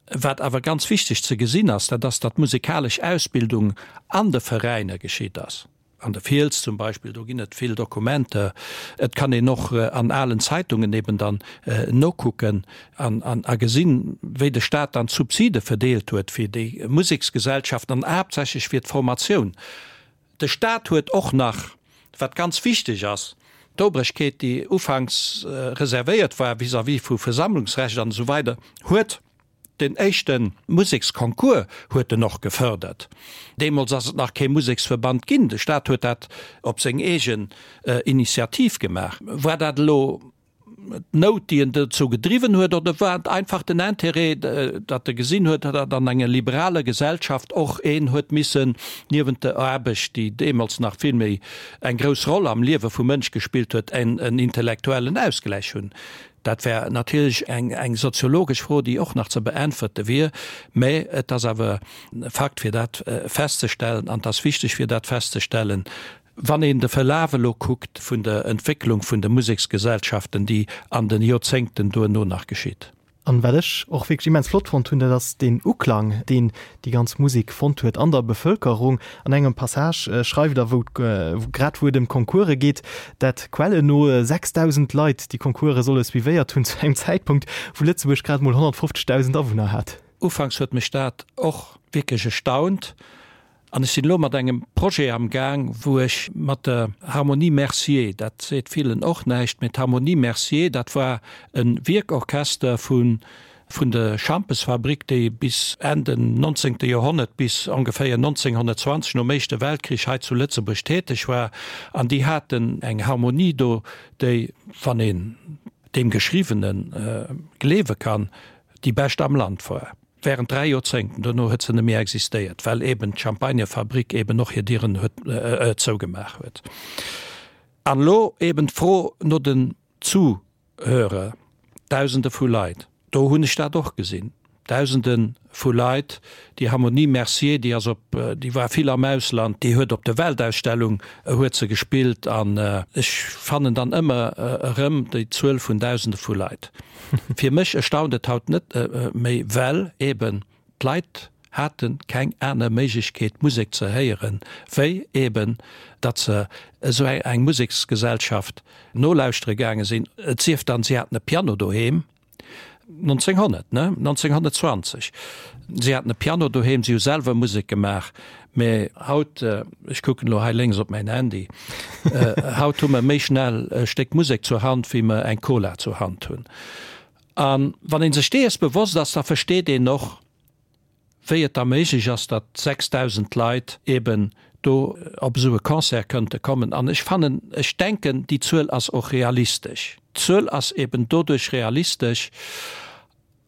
Wat awer ganz wichteg ze gesinn ass, dat ass, datt d'musekalesch Ausbildung an de Veräiner geschitt ass. An der Fiels zum Beispill, do ginn et vill Dokumenter. Et kann een och an alen Zeitungen eben dann nokucken an a gesinn, wéi de Staat dann d'Subside verdeelt huet fir déi Museksgesellschaften an haaptsächlech fir d'Formatioun. De Staat huet och nach, wat ganz wichteg ass, d'Obregkeet, déi ufanks reservéiert war vis-à-vis vu Versammlungsrecht an esou weider, huet den éischte Museksconcours huet en och gefördert. Deemools ass et nach kee Museksverband ginn, de Staat huet dat op seng eegen Initiativ gemaach. War dat elo d'Nout, déi en dozou gedriwwen huet, oder war et einfach den Intérêt, datt e gesinn huet, datt an enger liberaler Gesellschaft och een huet missen niewent der Aarbecht, déi deemools nach vill méi eng grouss Roll am Liewe vum Mënsch gespillt huet, en intellektuellen Ausgläich hunn? Dat wär natierlech eng soziologesch Fro, déi och nach ze beäntwerte wier, mä et ass awer e Fakt, fir dat festzestellen, an et ass wichteg, fir dat festzestellen, Wann een de Verlaf elo kuckt vun der Entwécklung vun de Museksgesellschaften, déi an de Joerzéngten duerno nach geschitt. An wat ech och wierklech immens flott fonnt hunn, dat ass deen Uklang, deen déi ganz Musek fonnt huet an der Bevëlkerung. An engem Passage schreift Der, wou grad wou et ëm d'Concourse geet, dat Quellen no 6.000 Leit déi Concourse solle suivéiert hunn, zu engem Zäitpunkt, wou Lëtzebuerg grad emol 150.000 Awunner hat. Ufanks huet mech dat och wierklech erstaunt. An ech sinn elo mat engem Projet am Gaang, wou ech mat der Harmonie Mercier, dat seet villen och näischt, mee d'Harmonie Mercier, dat war e Wierkorchester vu vun der Schampesfabrik, déi bis Enn den nonzéngte Joerhonnert, bis ongeféier 1920, nom Éischte Weltkrich, hei zu Lëtzebuerg täteg war. An déi haten eng Harmonie do, déi, wann een deem Geschriwwene gleewe kann, déi bescht am Land war. Während 3 Joerzéngten. Dono huet se net méi existéiert, well eben d'Champagnerfabrik eben och hir Dieren huet zougemaach huet. An elo eben d'Fro no den Zuhörer, Dausende vu Leit. Do hunn ech dat och gesinn, Dausende vu Leit. Déi Harmonie Mercier, déi ass op, déi war vill am Ausland, déi huet op der Weltausstellung huet se gespillt. An ech fannen dann ëmmer erëm déi Zuel vun Dausende vu Leit. Fir mech erstaunt et haut net méi, well eben d'Leit hate keng aner Méiglechkeet Musek ze héieren, wéi eben datt se esou eng Museksgesellschaft nolauschtere gaange sinn. Et sief dann, si haten e Piano doheem, 1900, ne? 1920. Si haten e Piano doheem, si hu selwer Musek gemaach. Mä haut, ech kucken elo hei lénks op mäin Handy, haut hu mer méi schnell e Stéck Musek zur Hand, wéi mer eng Cola zur Hand hunn. A wann ee sech dees bewosst ass, da versteet een och, wéi et da méiglech ass, datt 6.000 Leit eeben do op esou e Concert kënnte kommen. An ech fannen, ech denken, déi Zuel ass och realistesch. D'Zuel ass eeben doduerch realistesch.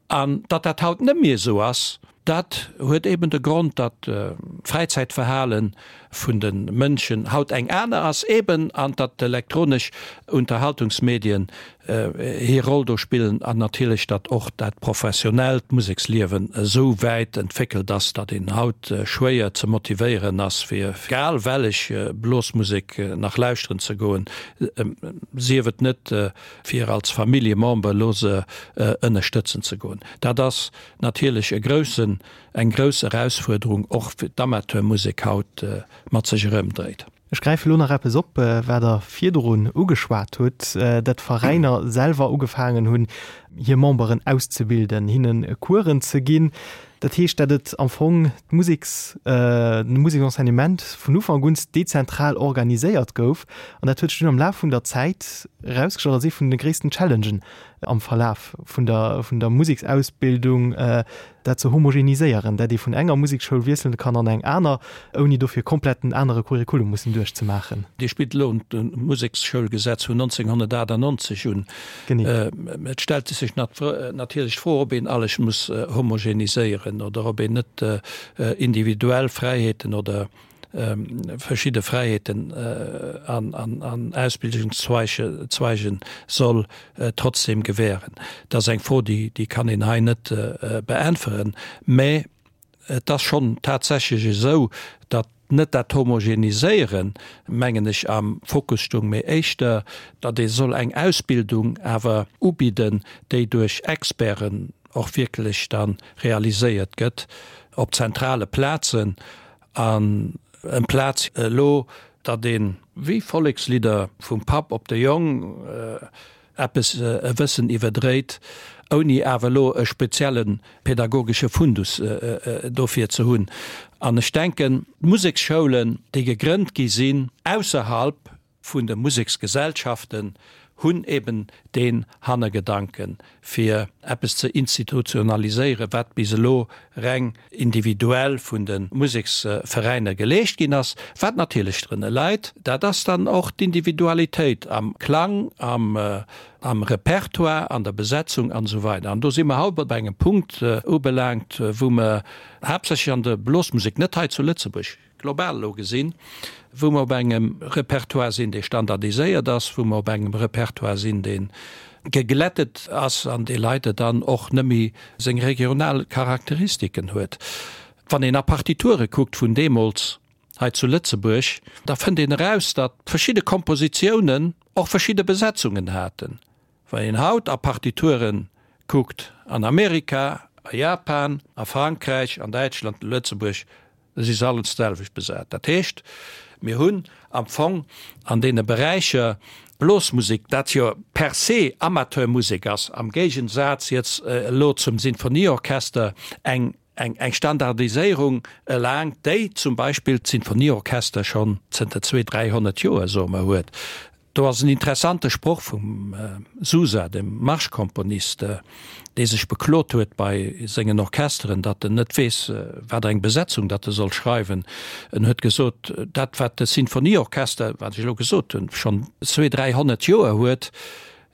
An datt dat haut net méi esou ass, dat huet eben de Grond, datt d'Fräizäitverhale vun de Mënschen haut eng aner ass eben an datt d'elektronesch Unterhaltungsmedien hir Roll do spillen an natierlech, datt och dat professionellt Museksliewen esou wäit entwéckelt ass, datt een haut schwéier ze motivéieren ass, fir egal wellech Blosmusek nach lauschteren ze goen, sief et net fir als Familljemember elo se ënnerstëtzen ze goen. Dat ass natierlech e groussen, eng grouss Erausfuerderung och fir d'Amateurmusek haut mat sech erëmdréit. Ech gräife lo nach eppes op, wat Der virdrun ugeschwat hutt, datt d'Veräiner selwer ugefaangen hunn, hir Memberen auszebilden, hinne Coursen ze ginn. Dat heescht, datt et am Fong d'Museks, de Museksenseignement vun Ufank un dezentral organiséiert gouf. An dat huet sech dunn am Laf vun der Zäit erausgestallt als ee vun de gréissten Challengen am Verlaf vun der, vun der Museksausbildung, dat ze homogeniséieren, dat ee vun enger Museksschoul wiesselen kann an eng aner, ouni dofir komplett en anere Curriculum mussen duerchzemaachen. Dir spillt elo d'Museksschoulgesetz vun 1998 un. Genee. Et stellt sech natierlech d'Fro, ob een alles muss homogeniséieren oder ob een net individuell Fräiheeten oder verschidde Fräiheeten an Ausbildungszweigen soll trotzdem gewähren. Dat ass eng Fro, déi kann een hei net beäntweren. Mä et ass schonn tatsächlech esou, datt net dat Homogeniséieren, mengen ech, am Fokus stung, mee éischter, datt ee soll eng Ausbildung awer ubidden, déi duerch Experten och wierklech da realiséiert gëtt op zentrale Plazen an amplaz elo, datt een, wéi Vollekslidder vum Papp op de Jong, eppes e Wëssen iwwerdréit, ouni awer elo e spezielle pedagogesche Fundus dofir ze hunn. An ech denken, d'Museksschoulen, déi gegrënnt gi sinn ausserhalb vun de Museksgesellschaften, hunn eben deen Hannergedanken, fir eppes ze institutionaliséieren, wat bis elo reng individuell vun de Museksveräiner geleescht ginn ass. Wat natierlech drënner leit, dat ass dann och d'Individualitéit am Klang, am Repertoire, an der Besetzung an esou weider. An do si mer haut bei engem Punkt ubelaangt, wou mer haaptsächlech an der Blosmusek, net hei zu Lëtzebuerg, global elo gesinn, wou mer op engem Repertoire sinn, dee standardiséiert ass, wou mer op engem Repertoire sinn, dee geglättet ass an dee leider dann och net méi seng regional Charakteristiken huet. Wann een a Partiture kuckt vun deemools hei zu Lëtzebuerg, da fënnt een eraus, datt verschidde Kompositiounen och verschidde Besetzungen haten. Wann een haut a Partituren kuckt an Amerika, a Japan, a Frankräich, an Däitschland, Lëtzebuerg, Da si se alles d'selwecht besat. Dat heescht, Mir hunn am Fong an deene Beräicher Blosmusek, dat jo per se Amateurmusek ass, am Géigensaz jetzt elo zum Sinfonieorchester, eng eng Standardiséierung erlaangt, déi zum Beispill d'Sinfonieorchester schonn zënter zwee, 300 Joer, soe mer, huet. Do ass en interessante Sproch vum Sousa, dem Marschkomponist, dee sech beklot huet bei sengen Orchesteren, datt en net weess, wat eng Besetzung datt e soll schreiwen. En huet gesot, dat wat de Sinfonieorchester, wat ech elo gesot hunn, schonn zwee, 300 Joer huet,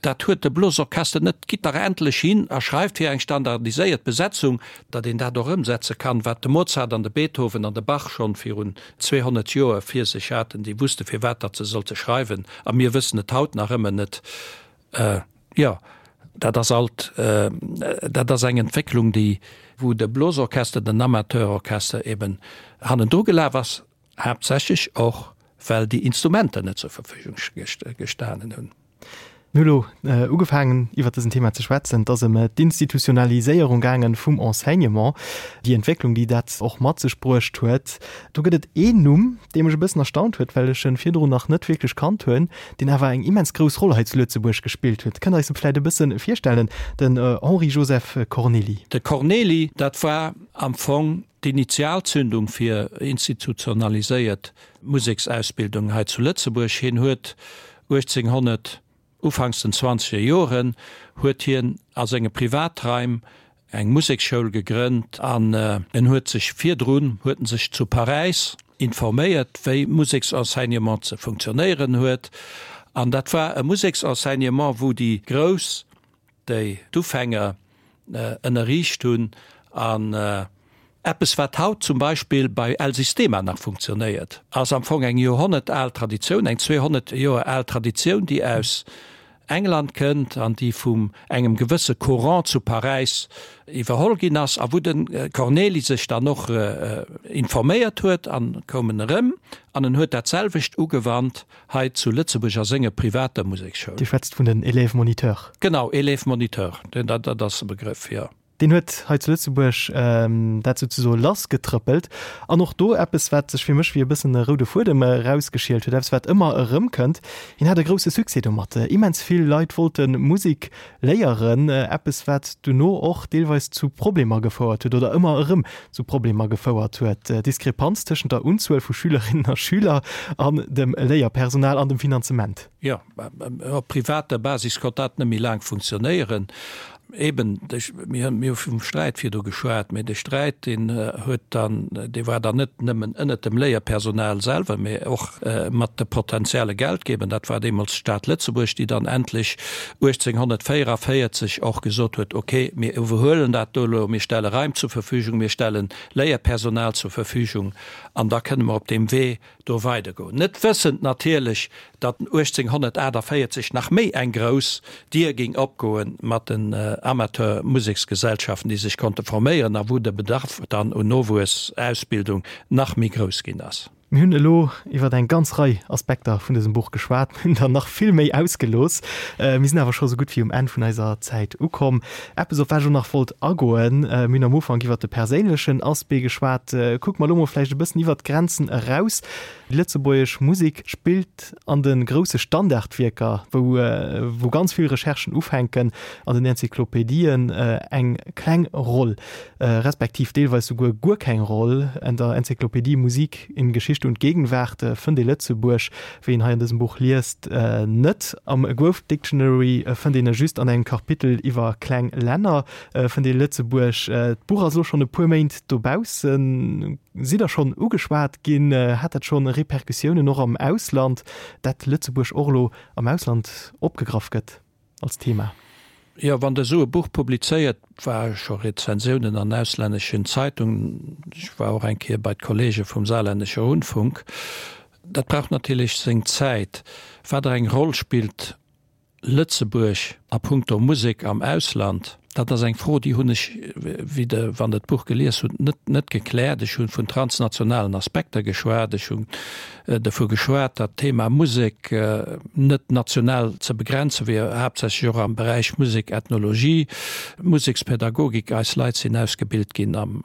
Dat huet de Blosorchester net. Gitt dach endlech hin a schreift fir eng standardiséiert Besetzung, datt een dat och ëmsetze kann, wat de Mozart an de Beethoven an de Bach schonn virun 200 Joer vir sech haten. Déi wusste firwat datt se sollte schreiwen, a mir wëssen et haut nach ëmmer net. Jo, dat ass alt, dat ass eng Entwécklung, déi, wou de Blosorchester, den Amateurorchester eben hannendru gelaf ass, haaptsächlech och well déi Instrumenter net zur Verfügung gestanen hunn. Mir hu lo ugefaangen iwwert dësen Thema ze schwätzen. Et ass ëm d'Institutionaliséierung gaangen vum Enseignement, déi Entwécklung, déi dat och mat sech bruecht huet. Do gëtt et een Numm, dee mech e bëssen erstaunt huet, well ech en virdrun nach net wierklech kannt hunn, deen awer eng immens grouss Roll hei zu Lëtzebuerg gespillt huet. Kënnt Der eis e vläicht e bësse virstellen, den Henri-Joseph Cornely? De Cornely, dat war am Fong d'Initialzündung fir institutionaliséiert Museksausbildung hei zu Lëtzebuerg. Hien huet 1800, ufanks den zwanzeger Joren, huet hien a senge Privatraim eng Museksschoul gegrënnt an en huet sech virdrun huet en sech zu Paräis informéiert, wéi Museksenseignement ze funktionéieren huet. An dat war e Museksenseignement, wou déi Grouss déi d'Ufänger ënnerriicht hunn an eppes wat haut zum Beispill bei El Sistema nach funktionéiert, ass am Fong eng joerhonnertal Traditioun, eng 200 Joer al Traditioun, déi aus England kënnt an déi vum engem gewësse Courant zu Paräis iwwerholl ginn ass a wou de Cornely sech dann och informéiert huet an koum en erëm an en huet dat selwecht ugewannt hei zu Lëtzebuerg a senger privater Museksschoul. Dir schwätzt vun den Élèves moniteurs. Genau, Élèves moniteurs, dat ass de Begrëff, jo. Deen huet hei zu Lëtzebuerg dat souzesoe lassgetrëppelt. An och do eppes, wat sech fir mech wéi e bëssen e roude Fuedem erausgeschielt huet, eppes, wat ëmmer erëmkënnt, Hien hat e grousse Succès domat. Immens vill Leit wollte Musek léieren, eppes, wat duerno och deelweis zu Problemer gefouert huet oder ëmmer erëm zu Problemer gefouert huet, Diskrepanz tëschent der Unzuel vu Schülerinnen a Schüler an dem Léierpersonal an dem Finanzement. Jo, op privater Basis konnt dat net méi laang funktionéieren. Eben, mir hu vum Sträit virdu geschwat, mee de Sträit, deen huet dann, dee war dann net nëmmen ënnert dem Léierpersonal selwer, mee och mat de potenzielle Geldgeber. Dat war deemools d'Stad Lëtzebuerg, déi dann endlech 1844 och gesot huet, ok, mir iwwerhuelen dat do elo, mir stelle Raim zur Verfügung, mir stelle Léierpersonal zur Verfügung an da kënne mer op deem Wee do weidergoen. Net wëssend natierlech, datt 1848 nach méi eng grouss Dier géing opgoe mat den Amateurmuseksgesellschaften, déi sech konnte forméieren a wou de Bedarf dann un Nowuessausbildung nach méi grouss ginn ass. Mir hunn elo iwwer eng ganz Rei Aspekter vun dësem Buch geschwat, mir hunn der nach vill méi ausgelooss. Mir sinn awer scho sou gutt wéi um Enn vun eiser Zäit ukomm. Eppes, op wat ech och nach wollt agoen, mir hunn am Ufank iwwer de perséinlechen Aspect geschwat, kucke mer elo mol vläicht e bëssen iwwer d'Grenzen eraus. Déi lëtzebuergesch Musek spillt an de grousse Standardwierker, wou wou ganz vill Recherchen ufänken, an den Enzyklopedien eng kleng Roll. Respektiv deelweis souguer guer keng Roll. An der Enzyklopädie Musik in Geschichte und Gegenwart fënnt ee Lëtzebuerg, wéi een hei an dësem Buch liest, net. Am Growth Dictionary fënnt een e just an engem Kapitel iwwer kleng Länner fënnt ee Lëtzebuerg. D'Buch ass elo schonn e puer Méint dobaussen. Sidd Der schonn ugeschwat ginn? Hat dat schonn Repercussiounen och am Ausland, dat Lëtzebuerg och elo am Ausland opgegraff gëtt? Als Thema. Jo, wann Der esou e Buch publizéiert, war scho Rezensiounen an auslänneschen Zeitungen, ech war och eng Kéier bei d'Kollege vum Saarländischer Rundfunk, dat brauch natierlech seng Zäit. Wat der eng Roll spillt Lëtzebuerg a puncto Musek am Ausland, dat ass eng Fro, déi hunn ech, wéi Der, wann Der d'Buch gelies hutt, net, net gekläert. Ech hu vun transnationalen Aspekter geschwat, ech hunn dovu geschwat, datt d'Thema Musek net national ze begrenze wier, haaptsächlech och am Beräich Musek, Ethnologie, Musekspädagogik. Eis Leit sinn ausgebilt ginn am,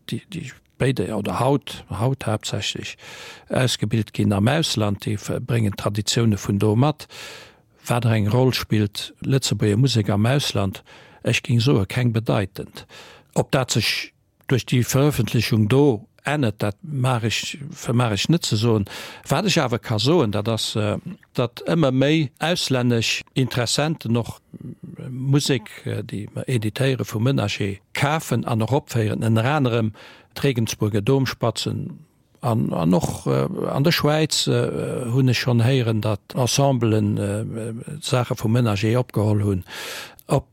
déi, déi. Béide, oder haut, haut haaptsächlech, ausgebilt ginn am Ausland, déi bréngen d'Traditioune vun do mat. Wat der eng Roll spillt Lëtzebuerger Musek am Ausland? Ech géing soe keng bedeitend. Ob dat sech duerch déi Verëffentlechung do ännert, dat mag ech, vermag ech net ze soen. Wat ech awer ka soen, dat ass, datt ëmmer méi auslännesch Interessenten och Musek, déi mer editéiere vu Menager, kafen an och opféieren, ënner anerem d'Regensburger Domspatzen an an och an der Schwäiz hunn ech schonn héieren, datt Ensemblen Saache vu Menager opgeholl hunn. Ob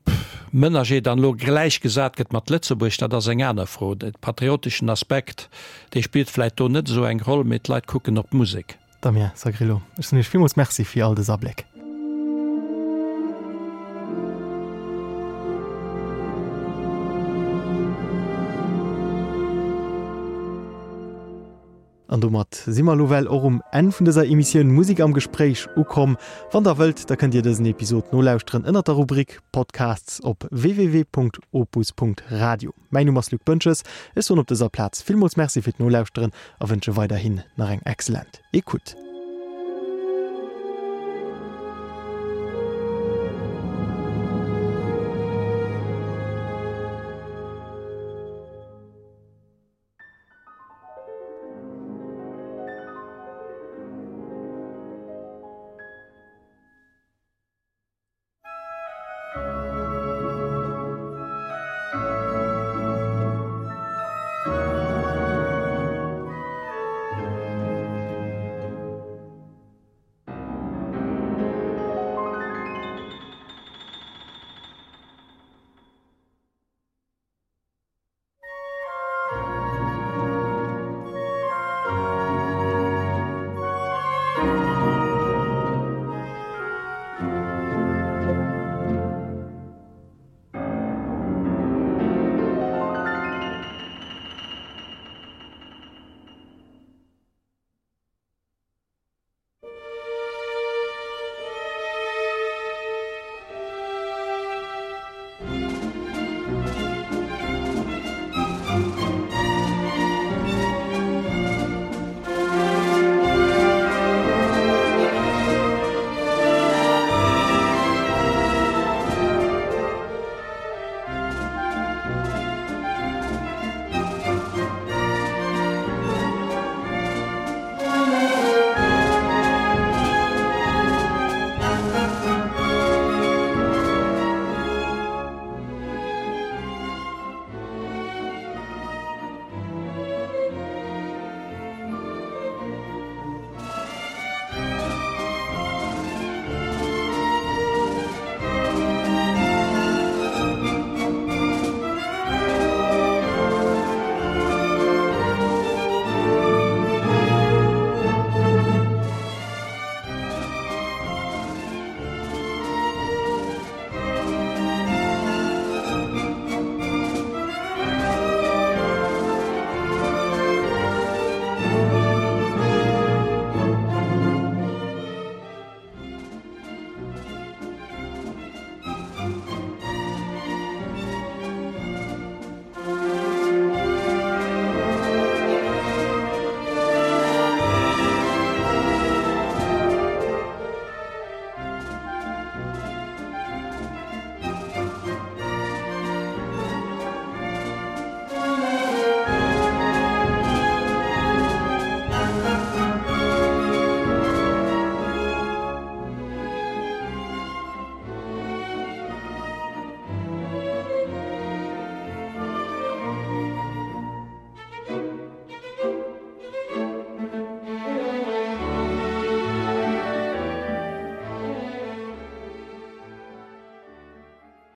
Menager dann elo gläichgesat gëtt mat Lëtzebuerg, dat ass eng aner Fro. De patrioteschen Aspekt, dee spillt vläicht do net esou eng Roll, mee d'Leit kucken op d'Musek. Damien Sagrillo, ech soen Iech villmools Merci fir all dës Abléck. An domat si mer elo well och um Enn vun dëser Emissioun Musik am Gespréich ukomm. Wann der wëllt, da kënnt Dir dësen Episod nolauschteren ënnert der Rubrik Podcasts op www.opus.radio. Mäin Numm ass Luc Boentges, ech soen op dëser Plaz villmools Merci fir d'Nolauschteren a wënsche weiderhin nach eng excellent Ecoute.